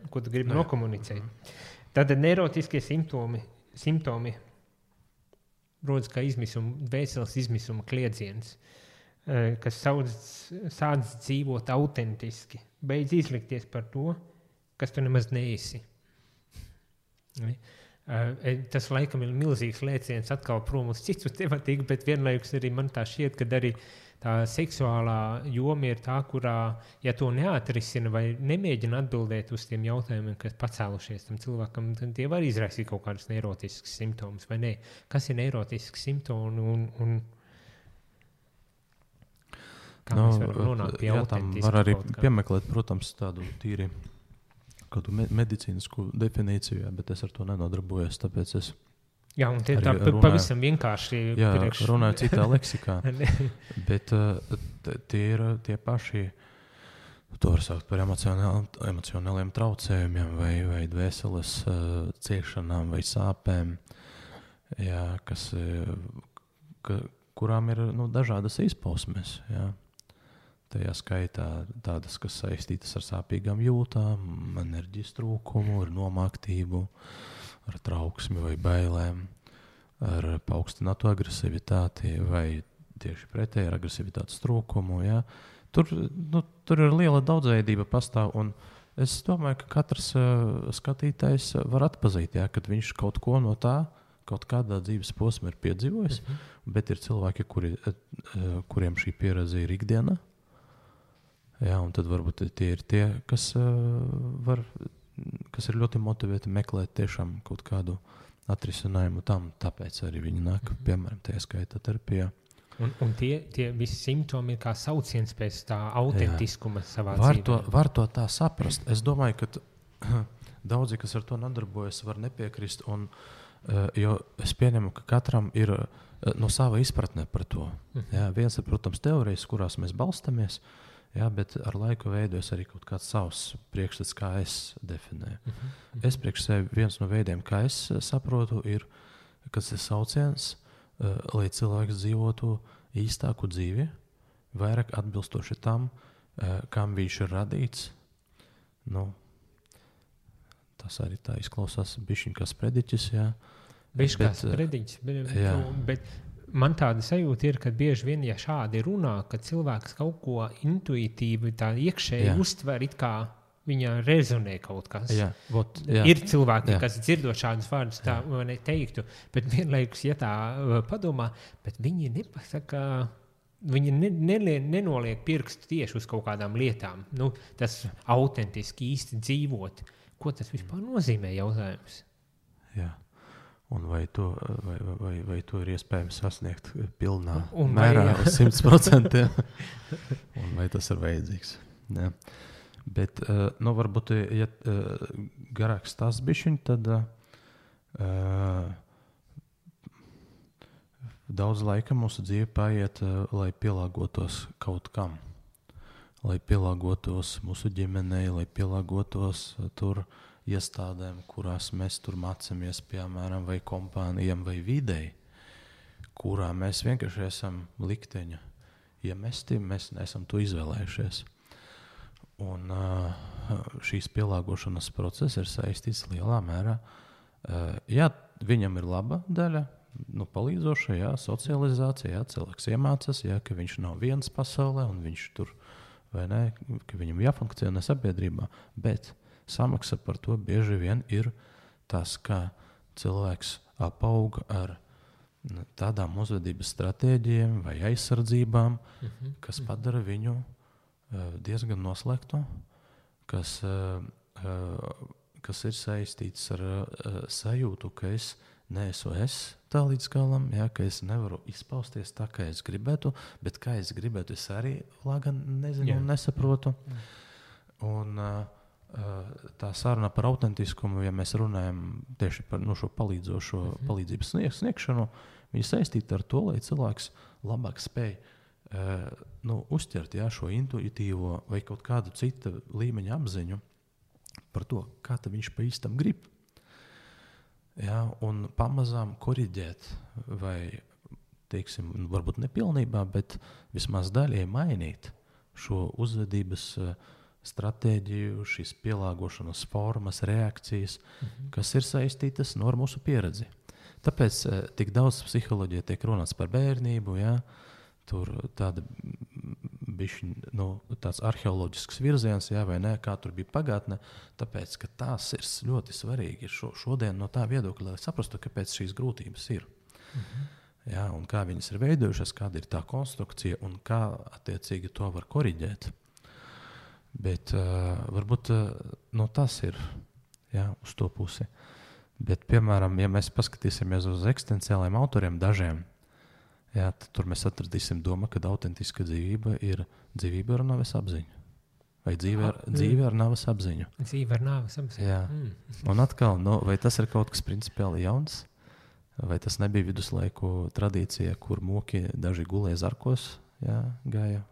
ko tu gribi nokomunicēt. Tātad neirotiskie simptomi rodas kā dvēseles izmisuma kliedziens, kas sāc dzīvot autentiski, beidz izlikties par to, kas tu nemaz neesi. Tas laikam ir milzīgs lēciens atkal prom uz citu tematiku, bet vienlaikus arī man tā šķiet, ka arī tā seksuālā joma ir tā, kurā, ja to neatrisina vai nemēģina atbildēt uz tiem jautājumiem, kas pacēlušies tam cilvēkam, tad tie var izraisīt kaut kādus neirotiskus simptomus, vai ne? Kas ir neirotisks simptomi un kā mēs varam nonākt pie autentisku? Var arī piemeklēt, protams, tādu tīri kādu medicīnisku definīciju, bet es ar to nenodarbojos, tāpēc es jā, un tie tā pavisam vienkārši runāju citā leksikā. Bet tie ir tie paši, to var saukt par emocionāliem traucējumiem vai dvēseles ciešanām vai sāpēm, jā, kurām ir dažādas izpausmes. Jā. Tajā skaitā tādas, kas saistītas ar sāpīgām jūtām, enerģijas trūkumu, ar nomāktību, ar trauksmi vai bailēm, ar paaugstinātu agresivitāti vai tieši pretēji ar agresivitātes trūkumu. Jā. Tur ir liela daudzveidība pastāv, un es domāju, ka katrs skatītājs var atpazīt, jā, kad viņš kaut ko no tā, kaut kādā dzīves posmā ir piedzīvojis, bet ir cilvēki, kuriem šī pieredze ir ikdiena. Jā, un tad varbūt tie ir tie, kas ir ļoti motivēti meklēt tiešām kaut kādu atrisinājumu tam, tāpēc arī viņi nāk, piemēram, tajā skaitā terapijā. Un tie visi simptomi ir kā sauciens pēc tā autentiskuma savā dzīvē. Var to tā saprast. Es domāju, ka daudzi, kas ar to nodarbojas, var nepiekrist, jo es pieņemu, ka katram ir no sava izpratne par to. Jā, viens ir, protams, teorijas, kurās mēs balstamies, jā, bet ar laiku veidojas arī kaut kāds savs priekšstats, kā es definēju. Es priekš sevi viens no veidiem, kā es saprotu, ir, kas ir sauciens, lai cilvēks dzīvotu īstāku dzīvi, vairāk atbilstoši tam, kam viņš ir radīts. Tas arī tā izklausās bišķiņ kā sprediķis, jā. Bišķi kā sprediķis, bet man tāda sajūta ir, ka bieži vien, ja šādi runā, ka cilvēks kaut ko intuitīvi tā iekšēji uztver, it kā viņa rezonē kaut kas. Jā. Ir cilvēki, kas dzirdot šādus vārdus, tā neteiktu, bet vienlaikus, ja tā padomā, bet viņi nepasaka, viņi nenoliek pirkstu tieši uz kaut kādām lietām. Tas autentiski īsti dzīvot. Ko tas vispār nozīmē, jautājums? Jā. Un vai to ir iespējams sasniegt pilnā mērā uz 100%? Un vai tas ir vajadzīgs? Jā. Bet, varbūt, ja garāks tas bišķiņ, tad daudz laika mūsu dzīve paiet, lai pielāgotos kaut kam. Lai pielāgotos mūsu ģimenei, lai pielāgotos tur iestādēm, kurās mēs tur mācāmies, piemēram, vai kompānijām, vai videi, kurā mēs vienkārši esam likteņa iemesti, mēs neesam to izvēlējušies. Un šīs pielāgošanas process ir saistīts lielā mērā. Jā, viņam ir laba daļa, palīdzoša, jā, socializācija, jā, cilvēks iemācās, jā, ka viņš nav viens pasaulē un viņš tur, vai ne, ka viņam jāfunkcionē sabiedrībā, bet samaksa par to bieži vien ir tas, ka cilvēks apauga ar tādām uzvedības stratēģijām vai aizsardzībām, kas padara viņu diezgan noslēgtu, kas ir saistīts ar sajūtu, ka es neesmu tā līdz galam, jā, ka es nevaru izpausties tā, kā es gribētu, bet kā es gribētu, es arī lagan nezinu un nesaprotu. Un tā saruna par autentiskumu, ja mēs runājam tieši par šo palīdzošo palīdzības sniegšanu, viņi saistīti ar to, lai cilvēks labāk spēj uzķert šo intuitīvo vai kaut kādu citu līmeņa apziņu par to, kā viņš pa īstam grib. Jā, un pamazām koriģēt vai, teiksim, varbūt nepilnībā, bet vismaz daļai mainīt šo uzvedības stratēģiju, šīs pielāgošanas formas, reakcijas, kas ir saistītas ar mūsu pieredzi. Tāpēc tik daudz psiholoģija tiek runāts par bērnību, jā, tur tāda tāds arheoloģisks virziens, jā, vai ne, kā tur bija pagātne, tāpēc, ka tās ir ļoti svarīgi šodien no tā viedokļa, lai saprastu, kāpēc šīs grūtības ir. Jā, un kā viņas ir veidojušas, kāda ir tā konstrukcija un kā attiecīgi to var koriģēt. Bet varbūt tas ir, jā, uz to pusi. Bet, piemēram, ja mēs paskatīsimies uz eksistenciāliem autoriem dažiem, jā, tad tur mēs atradīsim domu, ka autentiska dzīvība ir dzīvība ar nāves apziņu. Vai dzīve ar nāves apziņu? Dzīve ar nāves apziņu. Jā. Un atkal, vai tas ir kaut kas principiāli jauns? Vai tas nebija viduslaiku tradīcija, kur moki daži gulēja zarkos, jā, gāja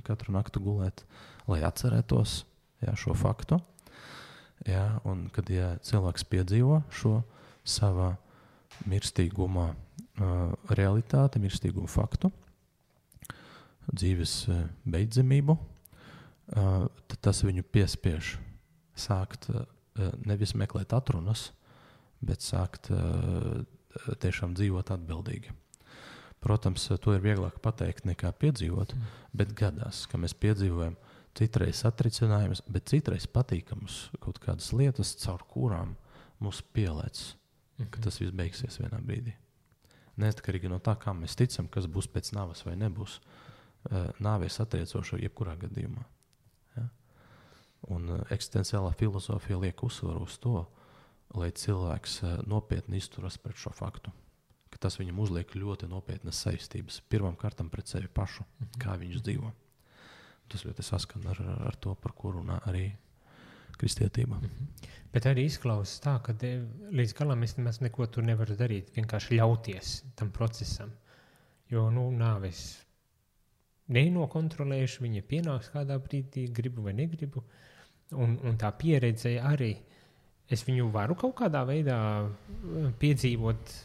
katru naktu gulēt, lai atcerētos, jā, šo faktu? Jā, un kad cilvēks piedzīvo šo savā mirstīgumā realitāti, mirstīgumu faktu, dzīves beidzamību, tad tas viņu piespiež sākt nevis meklēt atrunas, bet sākt tiešām dzīvot atbildīgi. Protams, to ir vieglāk pateikt nekā piedzīvot, bet gadās, ka mēs piedzīvojam citreiz satricinājumus, bet citreiz patīkamus kaut kādas lietas, caur kurām mūs pielēc, ka tas viss beigsies vienā brīdī. Neatkarīgi no tā, kā mēs ticam, kas būs pēc nāves vai nebūs, nāve ir satriecoša jebkurā gadījumā. Ja? Un eksistenciālā filozofija liek uzsvaru uz to, lai cilvēks nopietni izturas pret šo faktu. Ka tas viņam uzliek ļoti nopietnas saistības. Pirmām kārtām pret sevi pašu, kā viņš dzīvo. Tas ļoti saskan ar to, par ko runā arī kristietība. Bet arī izklausās tā, ka līdz galam es nemaz neko tur nevaru darīt, vienkārši ļauties tam procesam. Jo, nāves nenokontrolējuši, viņa pienāks kādā brīdī, gribu vai negribu. Un tā pieredze arī, es viņu varu kaut kādā veidā piedzīvot,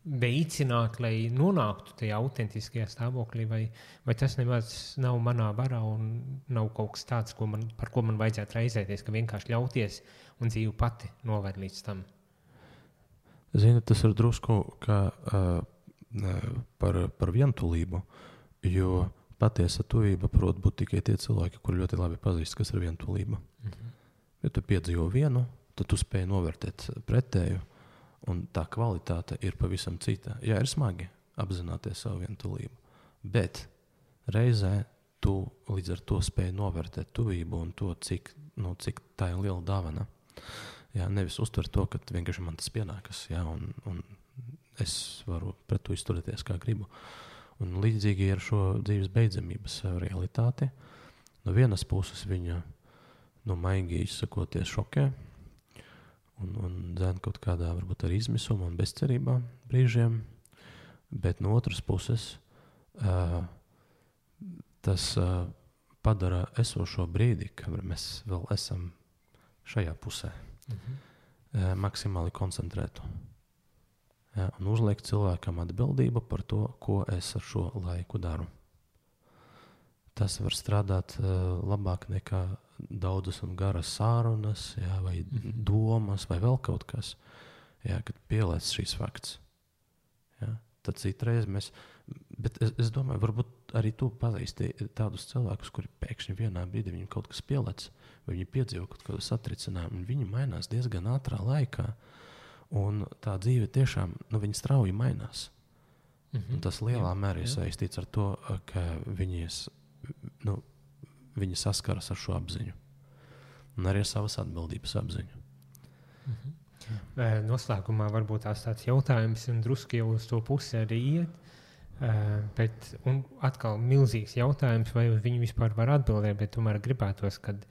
veicināt, lai nonāktu tajā autentiskajā stāvoklī, vai tas nemaz nav manā varā un nav kaut kas tāds, par ko man vajadzētu raizēties, ka vienkārši ļauties un dzīve pati noved līdz tam. Zini, tas ir drusku kā par vientulību, jo patiesa tuvība prot būt tikai tie cilvēki, kuri ļoti labi pazīst, kas ir vientulība. Ja tu piedzīvo vienu, tad tu spēj novērtēt pretēju, un tā kvalitāte ir pavisam cita. Jā, ir smagi apzināties savu vientulību, bet reizē tu līdz ar to spēj novērtēt tuvību un to, cik tā ir liela dāvana. Jā, nevis uztvert to, ka vienkārši man tas pienākas, jā, un es varu pret to izturēties, kā gribu. Un līdzīgi ar šo dzīves beidzamības realitāti. No vienas puses viņa, maigi izsakoties, šokē, un dzēn kaut kādā varbūt arī izmisumā un bezcerībā brīžiem, bet no otras puses tas padara esošo brīdi, kad mēs vēl esam šajā pusē, maksimāli koncentrētu. Ja, un uzliek cilvēkam atbildību par to, ko es ar šo laiku daru. Tas var strādāt labāk nekā daudzas un garas sārunas, jā, vai domas, vai vēl kaut kas, jā, kad pielēc šīs fakts. Jā, tad citreiz mēs, bet es domāju, varbūt arī tu pazīsti tādus cilvēkus, kuri pēkšņi vienā brīdī viņam kaut kas pielēc, vai viņi piedzīvo kaut kādu satricinājumu, un viņi mainās diezgan ātrā laikā, un tā dzīve tiešām, viņa strauji mainās. Un tas lielā mērā ir saistīts ar to, ka viņi saskaras ar šo apziņu. Un arī ar savas atbildības apziņu. Noslēgumā varbūt tāds jautājums, un druski jau uz to pusi arī iet, bet un atkal milzīgs jautājums, vai viņi vispār var atbildēt, bet tomēr gribētos, kad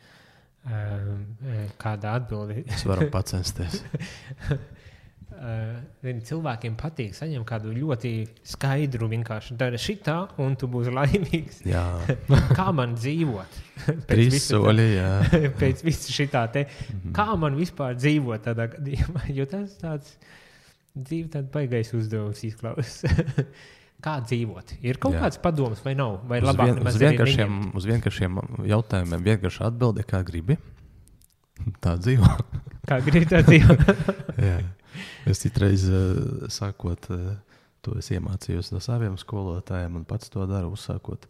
kāda atbildi. Es varu pacensties. Cilvēkiem patīk saņemt kādu ļoti skaidru, vienkārši dara šitā, un tu būsi laimīgs. Jā. Kā man dzīvot? Trīs soļi, jā. Pēc visu šitā te. Kā man vispār dzīvot tādā gadījumā? Jo tas tāds dzīve tāda baigais uzdevums izklausās. Kā dzīvot? Ir kaut kāds padoms vai nav? Vai labāk nemaz uz vienkāršiem jautājumiem vienkārši atbildi, kā gribi. Tā dzīvo. Kā gribi tā dzīvo. Jā. Es citreiz sākot, to es iemācījos no saviem skolotājiem un pats to daru, uzsākot,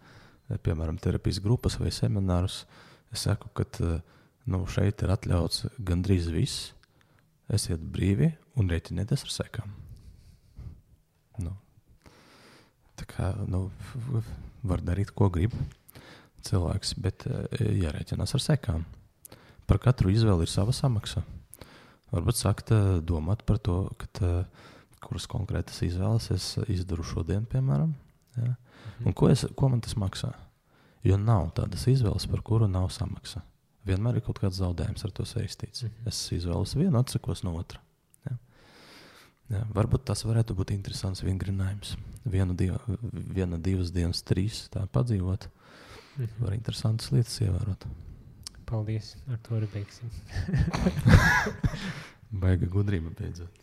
piemēram, terapijas grupas vai seminārus. Es saku, ka šeit ir atļauts gandrīz viss, esiet brīvi un rēķinieties ar sekām. Tā kā, var darīt, ko grib cilvēks, bet jārēķinās ar sekām. Par katru izvēli ir sava samaksa. Varbūt sākt domāt par to, kuras konkrētas izvēles es izdaru šodien, piemēram. Ja? Un ko man tas maksā? Jo nav tādas izvēles, par kuru nav samaksa. Vienmēr ir kaut kāds zaudējums ar to saistīts. Es izvēlos vienu, atsakos no otra. Ja? Ja, varbūt tas varētu būt interesants vingrinājums. Viena, divas dienas, 3 tā padzīvot. Var interesantas lietas ievērot. Paldies, ar to arī beigsim. Baiga gudrība beidzot.